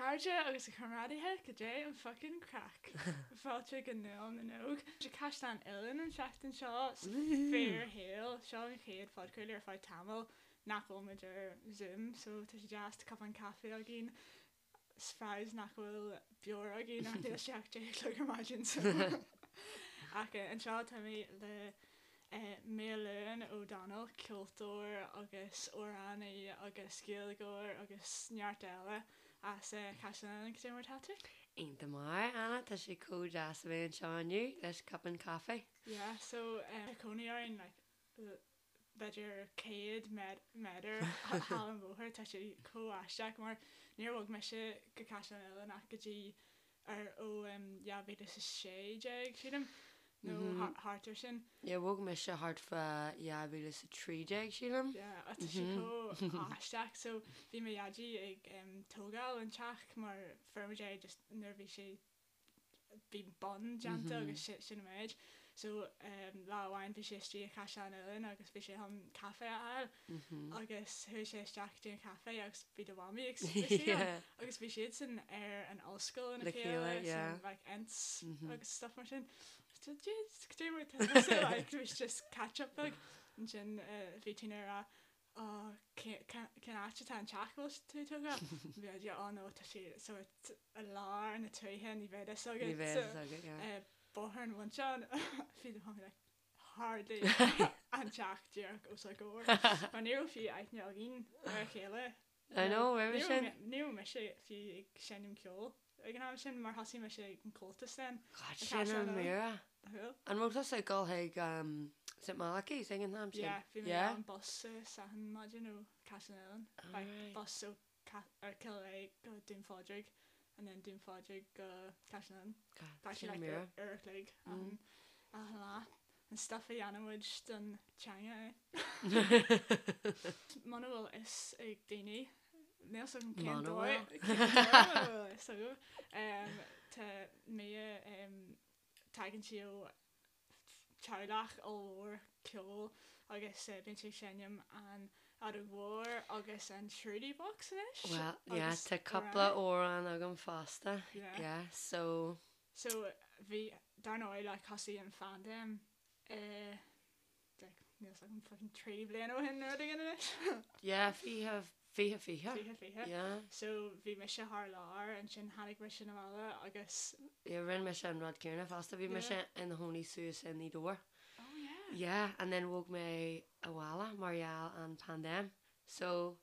chairde agus a chomrádaithe, cad é an fucking craic? Fáilte go Nuacht na nÓg. Sa Chaisleán Uidhilín an tseachtain seo, sa fíorshaol. Seo an chéad phodchraoladh ar feadh tamaill nach bhfuil muid ar Zoom, so tá sé deas, tá cupán caife againn. Is nach bhfuil beoir againn ach níl sé ach 10 a chlog ar maidin so. Ach anseo tá mé le Maelúin O'Donnell, ceoltóir agus amhránaí agus Gaeilgeoir agus neart eile as Caisleán Uidhilín. Cad é mar atá tú? Iontach maith, Anna, tá sé chomh deas a bheith anseo inniu leis cupán caife. Yeah, so tá cónaí orainn like b'fhéidir 100 méadar thall an bhóthar, tá sé chomh aisteach mar níor bhog mise go Caisleán Uidhilín ach go dtí ar ó 2016 sílim nó thart ar sin. Yeah, bhog mise thart fá 2013 sílim. Yeah, tá sé chomh aisteach so bhí mo dhaidí ag tógáil an teach mar fuair muid é just nuair a bhí sé bhí bun déanta agus sin an méid. So lá amháin bhí sé istigh i Caisleán Uidhilín agus bhí sé chun caife a fháil agus chuaigh sé isteach go dtí an caife agus bhí do mhamaí ag suí ann agus bhí siadsan ar an ollscoil lena chéile san like ents agus stuff mar sin. So jeez, cad é mar tá tusa like bhí just catch up beag ansin bhí Tina ag rá Ó, cén áit atá an teach a bhfuil tú ag tógáil? Bhí idea, oh no, tá sé sórt i lár na tuaithe, ní bheidh fhios agat. Ní bheidh fhios agat, yeah. Bóthar an Mhuinteáin, bhí do mhamaí like, hardly an teach díreach os ár gcomhair. Mar ní raibh fiú aithne againn ar a chéile. I know, roimhe sin. Ní raibh mise fiú ag seinm ceoil ag an am sin mar thosaigh mise ag an Comhaltas then. God, sin an mhíre. An raibh tusa ag dul chuig St Malachy's ag an am sin? Yeah, bhí mé ar an bus achan maidin ó Caisleán Uidhilín. Like bus ó Cill Aodha go Dún Phádraig and then Dún Phádraig go Caisleán Uidhilín. God, sin an mhíre. Uair a chloig achan lá. An stuff a dhéanann muid don teanga, eh? Muna bhfuil fhios ag daoine, níl 's agam cén dóigh, cén dóigh muna bhfuil fhios agaibh, tá Mia, tagann sí ó teaghlach ollmhór ceoil agus bíonn sí ag seinm an fheadóg mhór agus an shruti box anois. Well, yeah, tá cúpla amhrán agam fosta, yeah, so. So bhí, dar ndóigh, like thosaigh an phaindéim i like níl 's agam fucking 3 bliana ó shin nó rud éigin anois. Yeah, 20, 20, 20. 20, 20. Yeah. So bhí mise thar lear, ansin tháinig mise 'na bhaile agus. Yeah, rinne mise an rud céanna fosta, bhí mise ina chónaí suas i nGaoth Dobhair. Oh yeah. Yeah, and then bhog mé abhaile mar gheall an paindéim. So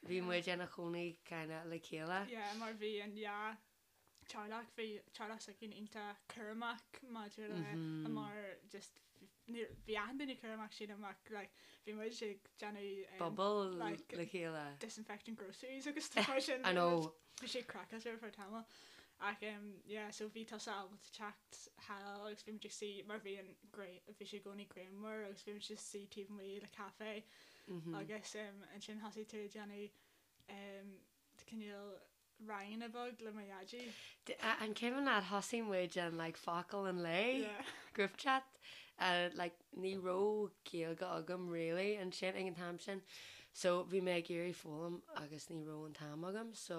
bhí muid ina chónaí kinda le chéile. Yeah, mar bhí an yeah teaghlach, bhí teaghlach s'againn iontach cúramach maidir le mar just bhí achan duine cúramach sílim ach like bhí muid ag déanamh Bubble like le chéile. disinfecting groceries agus stuff mar sin. I know. Bhí sé craiceáilte ar feadh tamaill ach um yeah so bhí tusa ábalta teacht thall agus bhí muid ag suí mar bhí an bhí sé i gcónaí grianmhar agus bhí muid just suí taobh amuigh le caife agus um ansin thosaigh tú ag déanamh um cineál ranganna beag le mo dhaidí. An cuimhin leat thosaigh muid an like focal an lae Yeah. group chat uh, like ní raibh Gaeilge agam really ansin ag an t-am sin so bhí mé ag iarraidh foghlaim agus ní raibh an t-am agam so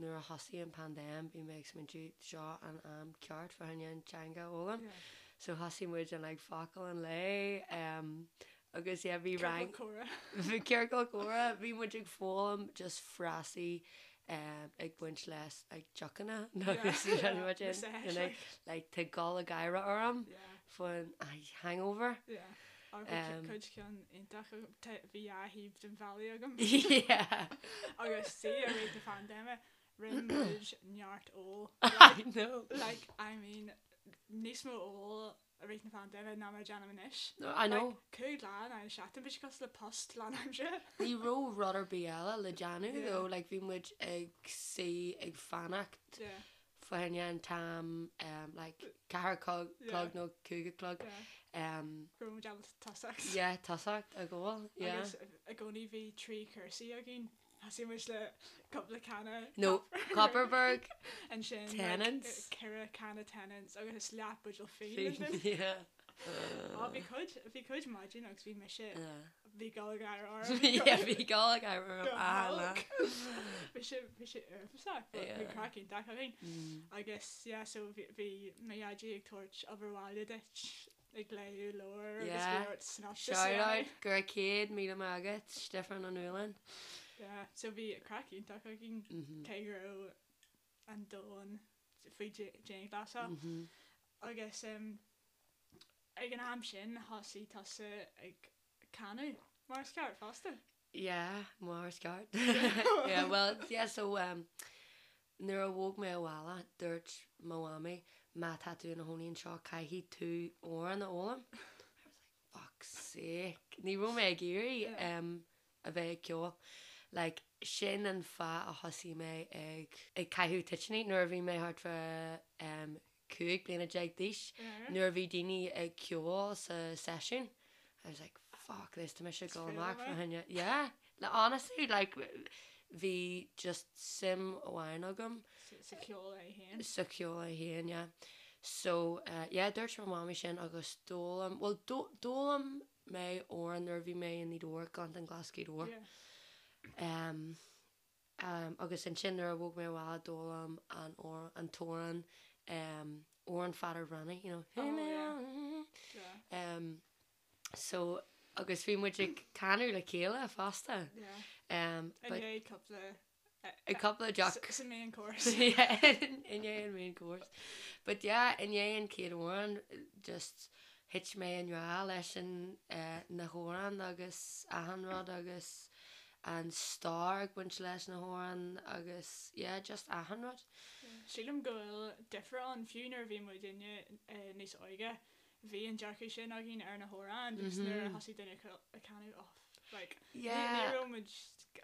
nuair a thosaigh an paindéim bhí mé ag smaointiú seo an am ceart fá choinne an teanga a fhoghlaim Yeah. so thosaigh muid an like focal an lae um, agus yeah bhí rang Ciorcal comhrá. Bhí ciorcal comhrá, bhí muid ag foghlaim just frásaí ag baint le like deochanna agus muid in like like tá gol ag gáire orm faoin hangover. Yeah. Or bhí cuid ceann iontach agam, bhí dhá thaobh den bhealaigh agam. Yeah. Agus see i rith na paindéime rinne muid neart ól. I know. Like I mean níos mó ól i rith na paindéime ná mar a déanaim anois. No, I know. Like, 5 lá in aghaidh na seachtaine, bhí sé cosúil le post lánaimseartha. Ní raibh rud ar bith eile le déanamh Yeah. though, like bhí muid ag suí ag fanacht Yeah. fá choinne an t-am um, like ceathair a clog Yeah. clog nó cúig a chlog Yeah. um, Go raibh muid ábalta tosacht. yeah, tosacht ag ól, yeah. Agus i gcónaí bhí trí chúrsaí againn. Thosaigh muid le cúpla canna No, Kopparberg ansin like, Tennent's. ceithre canna Tennent's agus leath buidéal fíon Yeah. Ó bhí cuid bhí cuid maidin agus bhí mise Yeah. Bhí gealgháire orm. Yeah, bhí gealgháire orm Go achan lá. holc. Bhí sé bhí sé uafásach but bhí Yeah. craic iontach againn. Agus yeah so bhí bhí mo dhaidí ag tabhairt obair bhaile duit ag léamh leabhar agus bhí Yeah. ort synopsis a Shout dhéanamh. out go raibh 100,000 maith agat, Stiofán Ó Nualláin. Yeah, so bhí craic iontach againn cé go raibh an domhan faoi dianghlasáil. Agus ag an am sin thosaigh tusa ag canadh mar is ceart fosta. Yeah, mar is ceart. Yeah, well, yeah, so um, nuair a bhog mé abhaile, dúirt mo mhamaí, má tá tú ina chónaí anseo, caithfidh tú amhrán a fhoghlaim. I was like, fuck's sake. Ní raibh mé ag iarraidh um, a bheith ag ceol. Like, sin an fáth a thosaigh mé ag ag caitheamh toitíní nuair a bhí mé thart fá um, 15 bliana d'aois. Nuair a bhí daoine ag ceol sa seisiún, I was like, fuck this, tá mise ag dul amach fá choinne. Yeah, like, honestly, like, bhí just suim amháin agam. Sa cheol é féin. Sa cheol é féin, yeah. So, uh, yeah, dúirt mo mhamaí sin agus d'fhoghlaim, well, d'fhoghlaim mé amhrán nuair a bhí mé i nGaoth Dobhair, Gleanntáin Glas Ghaoth Dobhair. Yeah. Um, um, agus ansin nuair a bhog mé abhaile d'fhoghlaim an an t-amhrán um, amhrán Pheadair Bhreathnaigh, you know. Oh, yeah. Yeah. Um, so, agus bhí muid ag canadh le chéile fosta. Yeah. Um, I but ndiaidh cúpla a cúpla deoch. Sa main course. Yeah, i ndiaidh an main course. But yeah, i ndiaidh an chéad amhrán, just thit mé i ngrá leis an eh, na hamhráin agus achan rud agus an stair ag baint leis na hamhráin agus yeah, just achan rud. Sílim go bhfuil difear ann, fiú nuair a bhí muidinne eh, níos óige, bhí an dearcadh sin againn ar na hamhráin just nuair a thosaigh duine ag canadh oh like ní Yeah. raibh muid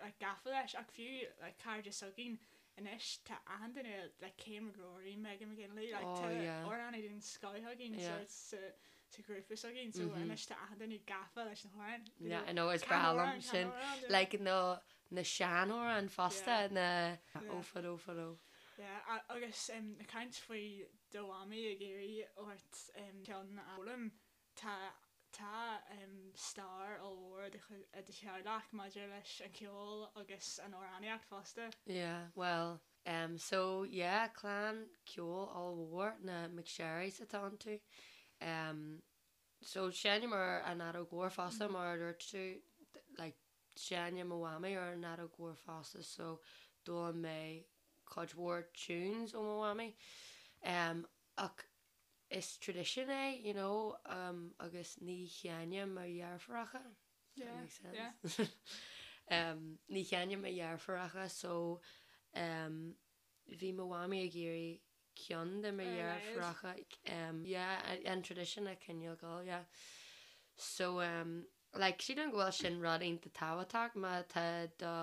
like gafa leis ach fiú like cairde s'againn anois tá achan duine like Cian McGrory, Megan McGinley like Oh tá yeah. amhránaí den scoth againn Yeah. sort sa sa ghrúpa s'againn so anois tá achan duine gafa leis na hamhráin you Yeah, know, I know is can breá liom amhrán, can sin. amhrán, yeah. Like na na seanamhráin fosta Yeah. na Yeah. ó fadó fadó. Yeah, agus ag caint faoi do mhamaí ag iarraidh ort ceann a fhoghlaim, tá tá stair ollmhór i do theaghlach maidir leis an cheol agus an amhránaíocht fosta. Yeah, well, um, so yeah, clann ceoil ollmhór na McSherrys atá iontu. Um, so seinnim ar an fheadóg mhór fosta mar a dúirt tú, like, Seinneann mo mhamaí ar an fheadóg mhór fosta so d'fhoghlaim mé cuid mhór tunes ó mo mhamaí. Um, ach is tradition é, you know, um, agus ní sheinneann mo dheirfiúracha. Does that Yeah, make sense? yeah. um, ní sheinneann mo dheirfiúracha so um, bhí mo mhamaí ag iarraidh ceann de mo Ar a laghad. dheirfiúracha um, yeah, an tradition a choinneáil ag dul, yeah. So um, like, sílim go bhfuil sin rud iontach tábhachtach má tá do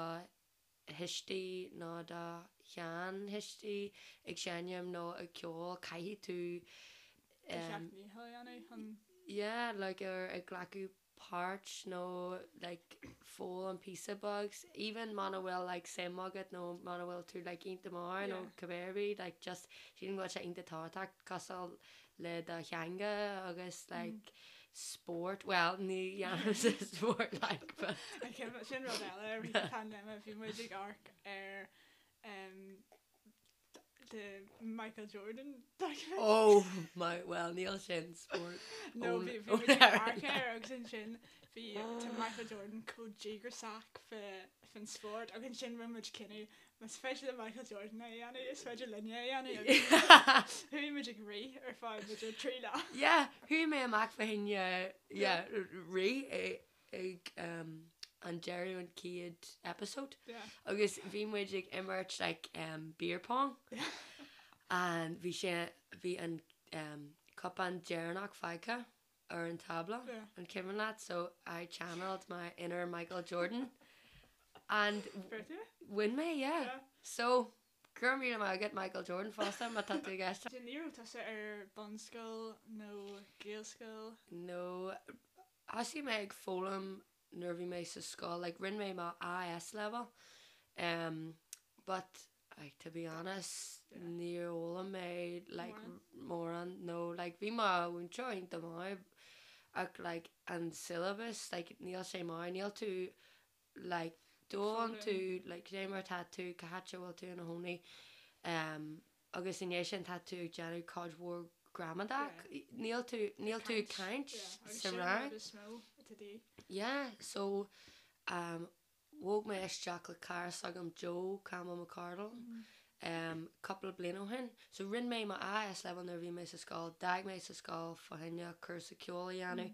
thuistí nó do sheanthuistí ag seinm nó ag ceol, caithfidh tú Do um, sheacht ndícheall a dhéanamh chun yeah, like, ar ag glacadh páirt nó like foghlaim píosa beag even muna bhfuil like suim agat nó muna bhfuil tú like iontach maith nó Yeah. cibé ar bith like just sílim go bhfuil sé iontach tábhachtach cosúil le do theanga agus like spórt well ní dhéanaimse spórt like but Okay, but sin rud eile i rith na paindéime bhí muid ag amharc ar um, the Michael Jordan documentary. oh my well níl sin spórt No, ón bhí bhí ón muid ag amharc Éirinn. air agus ansin bhí tá Michael Jordan chomh díograiseach faoin spórt agus ansin rinne muid cinneadh más féidir le Michael Jordan é a dhéanamh is féidir linne é a dhéanamh agus chuaigh muid ag rith ar feadh b'fhéidir 3 lá. Yeah, chuaigh mé amach fá choinne yeah, rith ag um, an deireadh an chéad episode Yeah. agus bhí muid ag imirt like um, beer pong Yeah. and bhí sé bhí an um, cupán deireanach fágtha ar an tábla Yeah. an cuimhin leat so I channeled my inner Michael Jordan and Bhfuair tú? bhain mé yeah. Yeah. So go raibh míle maith agat Michael Jordan fosta má tá tú ag éisteacht. Ní raibh tusa ar bunscoil nó Gaelscoil? No, thosaigh mé ag foghlaim nuair a bhí mé sa scoil, like rinne mé mo AS level, um, but like to be honest, Yeah. níor fhoghlaim mé like Mórán. mórán, no, like bhí mo mhúinteoir iontach maith. ach like an syllabus like níl sé maith, níl tú like d'fhoghlaim tú like cé mar tá tú, cá háit a bhfuil tú ina chónaí um, agus i ndiaidh sin tá tú ag déanamh cuid mhór gramadach, níl tú, níl tú ag caint sa rang. Yeah, so um, Bhog mé isteach le cara s'agam Joe Campbell McCardle cúpla bliain ó shin. So rinne mé mo AS level nuair a bhí mé sa scoil, d'fhág mé sa scoil fá choinne cúrsa ceoil a dhéanamh.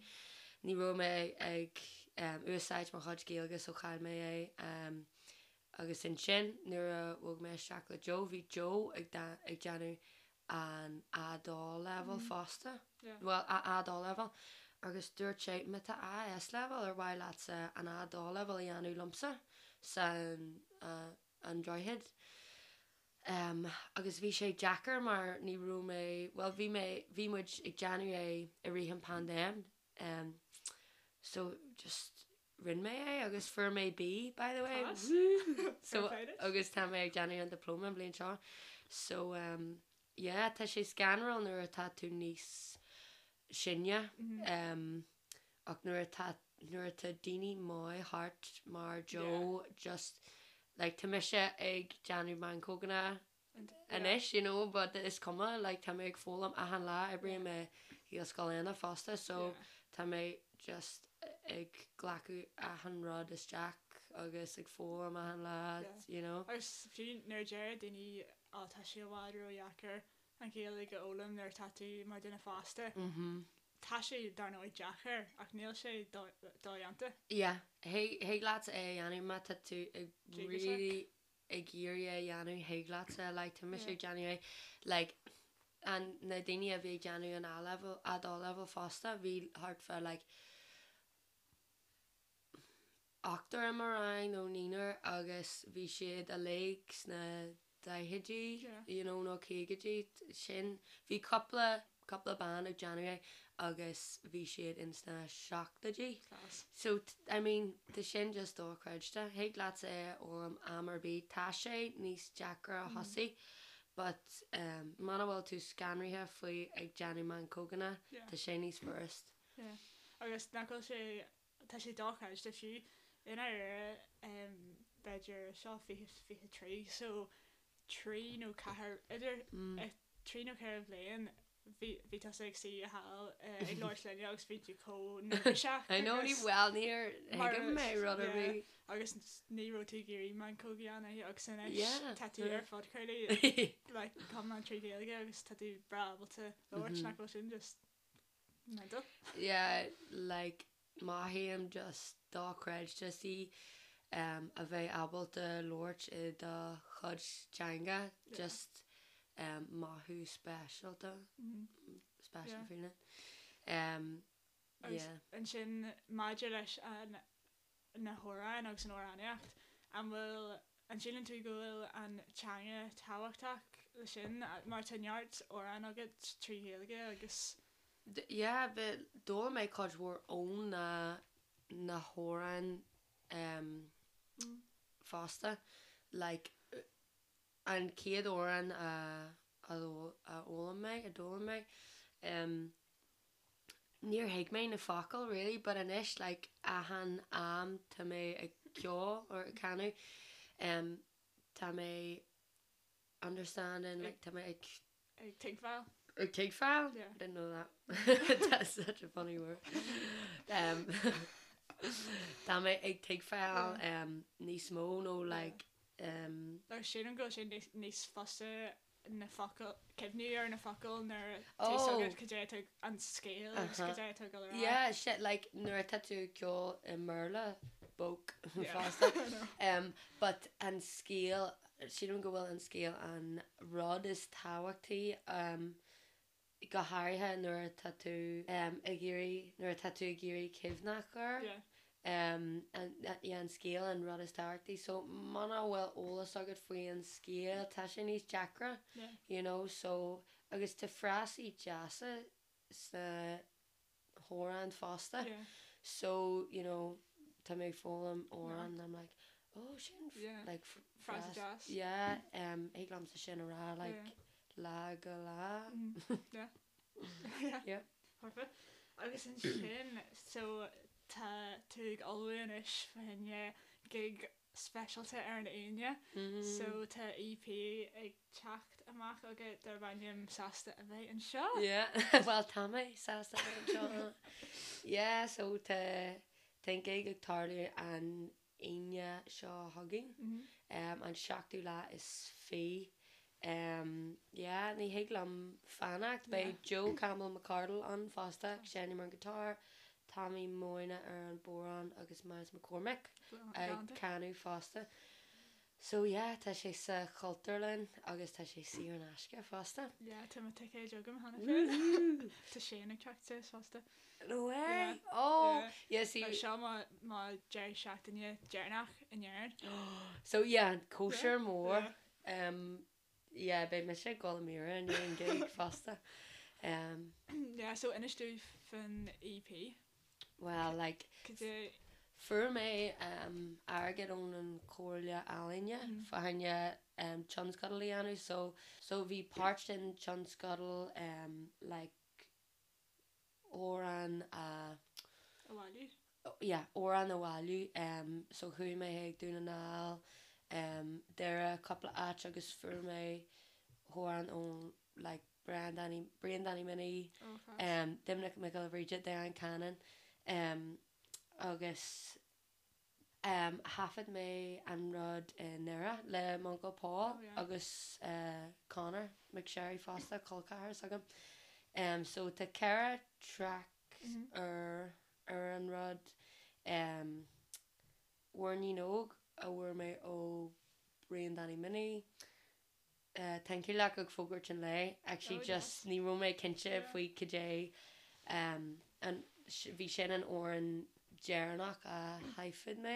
Ní raibh mé ag úsáid mo chuid Gaeilge so chaill mé é. Agus ansin nuair a bhog mé isteach le Joe, bhí Joe ag déanamh an A2 level fosta, bhuel A2 level, agus dúirt sé má tá AS level ar mhaith leatsa an A2 level a dhéanamh liomsa san an Droichead. Um, agus bhí sé deacair mar ní raibh mé, bhuel bhí mé, bhí muid ag déanamh é i rith an paindéim, um, so just rinne mé é agus fuair mé B by the way. Class. Woo! So Fair play duit. agus tá mé ag déanamh an diploma an bhliain seo. So um, yeah, tá sé scanrúil nuair atá tú níos sine um, ach nuair atá nuair atá daoine maith thart mar Joe just like tá mise ag déanamh meancóganna anois you know but is cuma like tá mé ag foghlaim achan lá oibrím i Gaelscoil Éanna fosta so tá mé just ag glacadh achan rud isteach agus ag foghlaim achan lá you know. Agus fiú nuair a deir daoine ó tá sé i bhfad ródheacair an Ghaeilge a fhoghlaim nuair atá tú mar duine fásta, tá sé dar ndóigh deacair ach níl sé dodhéanta. Yeah, thig leat é a dhéanamh má tá tú ag really ag iarraidh é a dhéanamh thig leatsa like tá mise ag déanamh é like an na daoine a bhí ag déanamh an A level A2 level fosta bhí thart fá like ochtar i mo rang nó naonúr agus bhí siad uilig sna daichidí you know nó caogaidí sin bhí cúpla cúpla bean ag déanamh é agus bhí siad ins na seachtóidí. So, I mean, tá sin just dochreidte. Thig leatsa é a fhoghlaim am ar bith. Tá sé níos deacra a thosaí but um, muna bhfuil tú scanraithe faoi ag déanamh meancóganna, tá sé níos furast. Yeah. Agus nach bhfuil sé, tá sé dochreidte fiú i ndáiríre um, b'fhéidir seo 2023 so trí nó ceathair, idir trí nó ceithre bhliain bhí bhí tusa ag suí thall ag labhairt linne agus bhí tú chomh neirbhíseach I know ní bhuel níor thuig mé rud ar bith. Agus ní raibh tú ag iarraidh meancóg a dhéanamh agus anois tá tú ar phodchraoladh like iomlán trí Ghaeilge agus tá tú breá ábalta labhairt nach bhfuil sin just mental. Yeah like Mothaím just dochreidte sí a bheith ábalta labhairt i do chuid teanga just mothú speisialta, special feeling. Agus ansin maidir leis an na hamhráin agus an amhránaíocht, an bhfuil, an síleann tú go bhfuil an teanga tábhachtach le sin mar tá neart amhrán agat trí Ghaeilge agus. Yeah, bhí, d'fhoghlaim mé cuid mhór ó na, na hamhráin em fosta. Like, an chéad amhrán a, a a fhoghlaim mé, a d'fhoghlaim mé, em níor thuig mé na focail really but anois like achan am tá mé ag ceol or ag canadh em tá mé understanding like tá mé ag Ag tuigbheáil. Ag tuigbheáil? Yeah. Didn't know that. That's such a funny word. Um, tá mé ag tuigbheáil um, níos mó nó like um, Agus sílim go bhfuil sé níos, níos fusa na focail, cuimhniú ar na focail nuair tá fhios agat cad é atá an scéal agus cad é atá ag dul ar aghaidh. Yeah, shit, like nuair atá tú ag ceol i mBéarla, bóc fosta. Um, but an scéal, sílim go bhfuil an scéal an rud is tábhachtaí um, go háirithe nuair atá tú um, ag iarraidh, nuair atá tú ag iarraidh cuimhneach air. Yeah. Um, an, yeah, an scéal an rud is tábhachtaí. So muna bhfuil eolas agat faoi an scéal, tá sé níos deacra, Yeah. you know, so agus tá frásaí deasa sna hamhráin fosta. Yeah. So, you know, tá mé ag foghlaim amhrán and I'm like, oh, sin Yeah. like Frása deas. Yeah, um, thig liomsa sin a rá, like, Yeah. lá go lá. Yeah. Yeah. Yeah. Perfect. Agus ansin, so tá tú ag ullmhú anois fá choinne gig speisialta ar an Aoine. So tá EP ag teacht amach agat darb ainm Sásta a bheith anseo. Yeah, bhuel tá mé sásta a bheith anseo. Yeah, so tá tá an gig ag tarlú an Aoine seo chugainn, an seachtú lá is fiche. Yeah, ní thig liom fanacht. Beidh Joe Campbell McCardle ann fosta ag seinm ar an guitar, Tommy Moyna ar an bodhrán agus Myles McCormick ag canadh fosta. So yeah, tá sé sa Chultúrlann agus tá sé saor in aisce fosta. Yeah, tá mo ticéid agam cheana féin. Tá Shane ag teacht suas fosta. No way! Yeah. Oh! Yeah, see. Seo mo mo deireadh seachtaine deireanach in Éirinn. So yeah, cóisir mór. Um, yeah, beidh mise ag gol i míre i ndiaidh an gig fosta. Um, Yeah, so inis dúinn faoin EP. Well, like, Cad é fuair mé um, airgead ón an Chomhairle Ealaíne mm. fá choinne um, tionscadal a dhéanamh, so, so bhí páirt den tionscadal um, like, amhrán a. A bhailiú? Yeah, amhrán a bhailiú. So chuaigh mé chuig Dún na nGall, Doire, cúpla áit agus fuair mé amhrán ó like Brian Danny, Brian Danny Minnie, Doimnic Mac Giolla Bhríde, Diane Cannon agus Thaifead mé an rud i nDoire le m'uncail Paul agus Conor McSherry fosta, col ceathar s'agam. So tá 4 traic ar ar an rud. Muirnín Óg a fuair mé ó Brian Danny Minnie. Tá an Cailleach ag fógairt an lae. Actually just ní raibh mé cinnte faoi cad é an bhí sin an amhrán deireanach a thaifead mé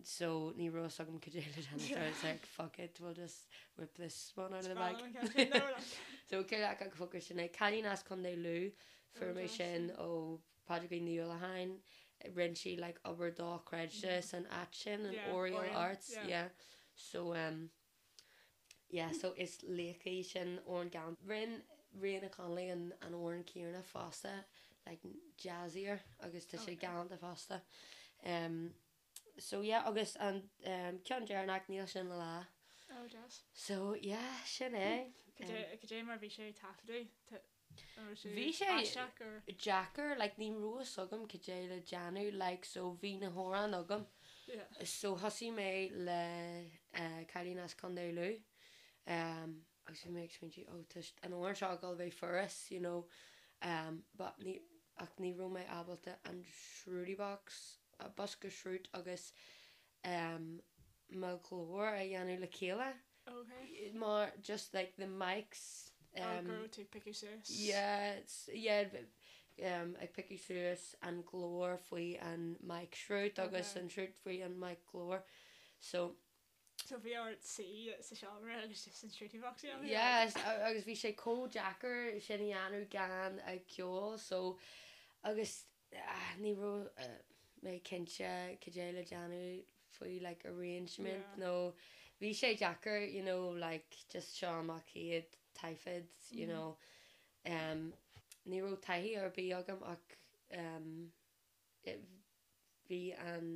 so ní raibh fhios agam cad é le déanamh so I was like fuck it we'll just whip this one out of the bag. So Cailleach ag fógairt an lae. Cailín as Contae Lú fuair mé sin ó Pádraigín Ní Uallacháin rinne sí like obair dochreidte san áit sin an Oriel Arts yeah so um Yeah so is laoch í sin amhrán galánta. Rinne Ríona Connolly an an amhrán céanna fosta like jazzier agus tá sé galánta fosta. Um so yeah agus an um ceann deireanach níl sin le lá. Oh deas. So yeah sin é. Cad é cad é mar bhí sé taifeadadh? Bhí sé deacair, like ní raibh fhios agam cad é le déanamh, like so bhí na hamhráin agam so thosaigh mé le Cailín as Contae Lú agus bhí mé ag smaointiú oh tá an amhrán seo ag dul a bheith furast you know but ní ach ní raibh mé ábalta an shruti box, bosca sruth agus mo ghlór a dhéanamh le chéile. Okay. Mar just like the mics um, Oh, go raibh tú ag piocadh suas. Yeah, yeah, um, ag piocadh suas an glór faoi an mic sruth agus an sruth faoi an mic glór. So. So bhí ort suí sa seomra agus just an shruti box a dhéanamh? Yes, agus bhí sé chomh deacair sin a dhéanamh gan ag ceol so agus ní raibh mé cinnte cad é le déanamh faoi like arrangement nó bhí sé deacair you know like just seo mo chéad taifead you know um ní raibh taithí ar bith agam ach um bhí an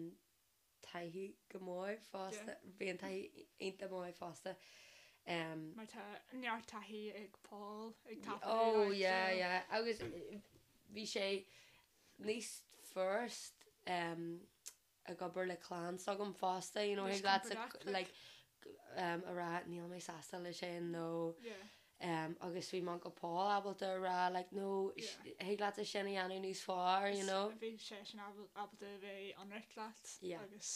taithí go maith fosta, bhí an taithí iontach maith fosta. Mar tá neart taithí ag Paul ag taifeadadh. Oh yeah yeah agus bhí sé níos furast ag obair le clann s'agam fosta you know thig leat like a rá níl mé sásta le sin nó agus bhí m'uncail Paul ábalta a rá like no thig leatsa sin a dhéanamh níos fearr you know. Bhí seisean ábalta a bheith ionraic leat agus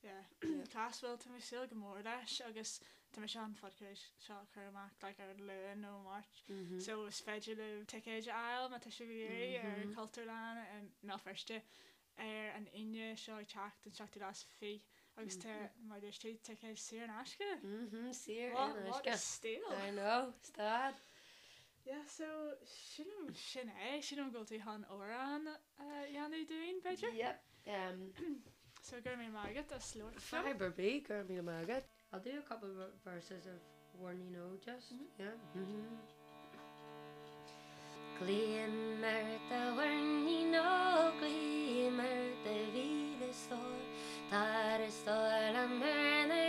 yeah class bhuel tá mé ag súil go mór leis agus tá mise an podchraoladh seo a chur amach like ar an Luan nó Máirt so is féidir libh ticéid a fháil má tá sibh ag iarraidh ar Cultúrlann i mBéal Feirste ar an Aoine seo ag teacht, an seachtú lá is fiche, agus tá, mar a dúirt tú, ticéid saor in aisce. Mhm, saor in aisce. What a steal! I know, stad. Yeah, so sílim sin é, sílim go bhfuil tú chun amhrán a dhéanamh dúinn, b'fhéidir? Yep. Um, so go raibh míle maith agat as labhairt liom. Fadhb ar bith, go raibh míle maith agat. I'll do a couple of verses of one you know just, yeah. Glaoim ort a mhuirnín óg, glaoim ort a mhíle stór, Tar a stór liom ar na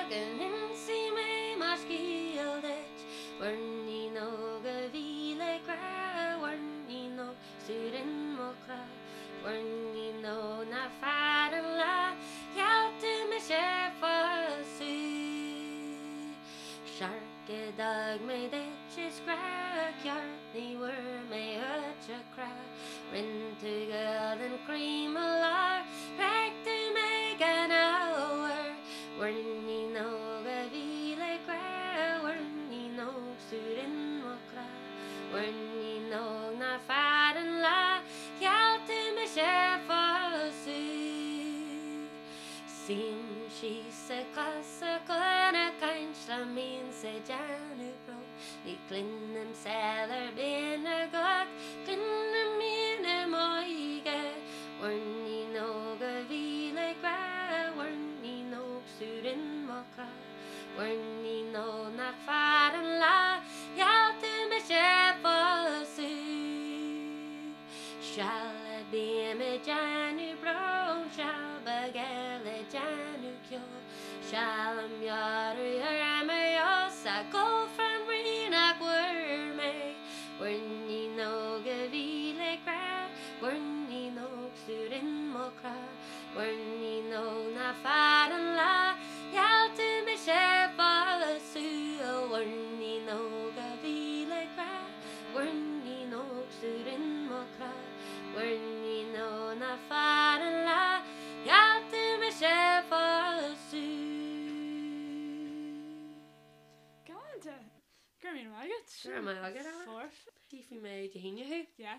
go n-inseoidh mé mo scéal duit, Muirnín óg a bhí le grá, Mhuirnín óg 's tú rin mo chrá, Mhuirnín óg nach fearr an lá, Gheall tú mise a phósadh. Searc a d'fhág mé duit is grá ceart ní bhfuair mé uait a chrá Rinn tú gual den chroí mo lár Thréig tú mé gan ábhar Mhuirnín óg a bhí le grá Mhuirnín óg 's tú rin mo chrá Mhuirnín óg nach fearr an lá Gheall tú mise a phósadh Suím síos ag cosa chun a caint liom mbíonns ag déanamh brón Ní chluinim saol ar binn a gach cluinim mian i m'óige Mhuirnín óg a bhí le grá Mhuirnín óg 's tú rin mo chrá Mhuirnín óg nach fearr an lá Gheall tú mise a phósadh Seal a bím ag déanamh brón, seal beag eile ag déanamh ceoil, seal a meabhrú orm ar fheabhas a gol fram rí nach bhfuair mé. Muirnín óg a bhí le grá, Muirnín óg 's tú rin mo chrá, Muirnín óg nach fearr an lá, Gheall tú mise a phósadh, a mhuirnín óg a bhí le grá. Muirnín óg 's tú rin mo chrá, Muirnín óg nach fearr an lá, Gheall tú mise a phósadh. Galánta! Go raibh míle maith agat. Go raibh maith agat, Anna. Foirfe. Tífidh mé Dé hAoine thú. Yeah.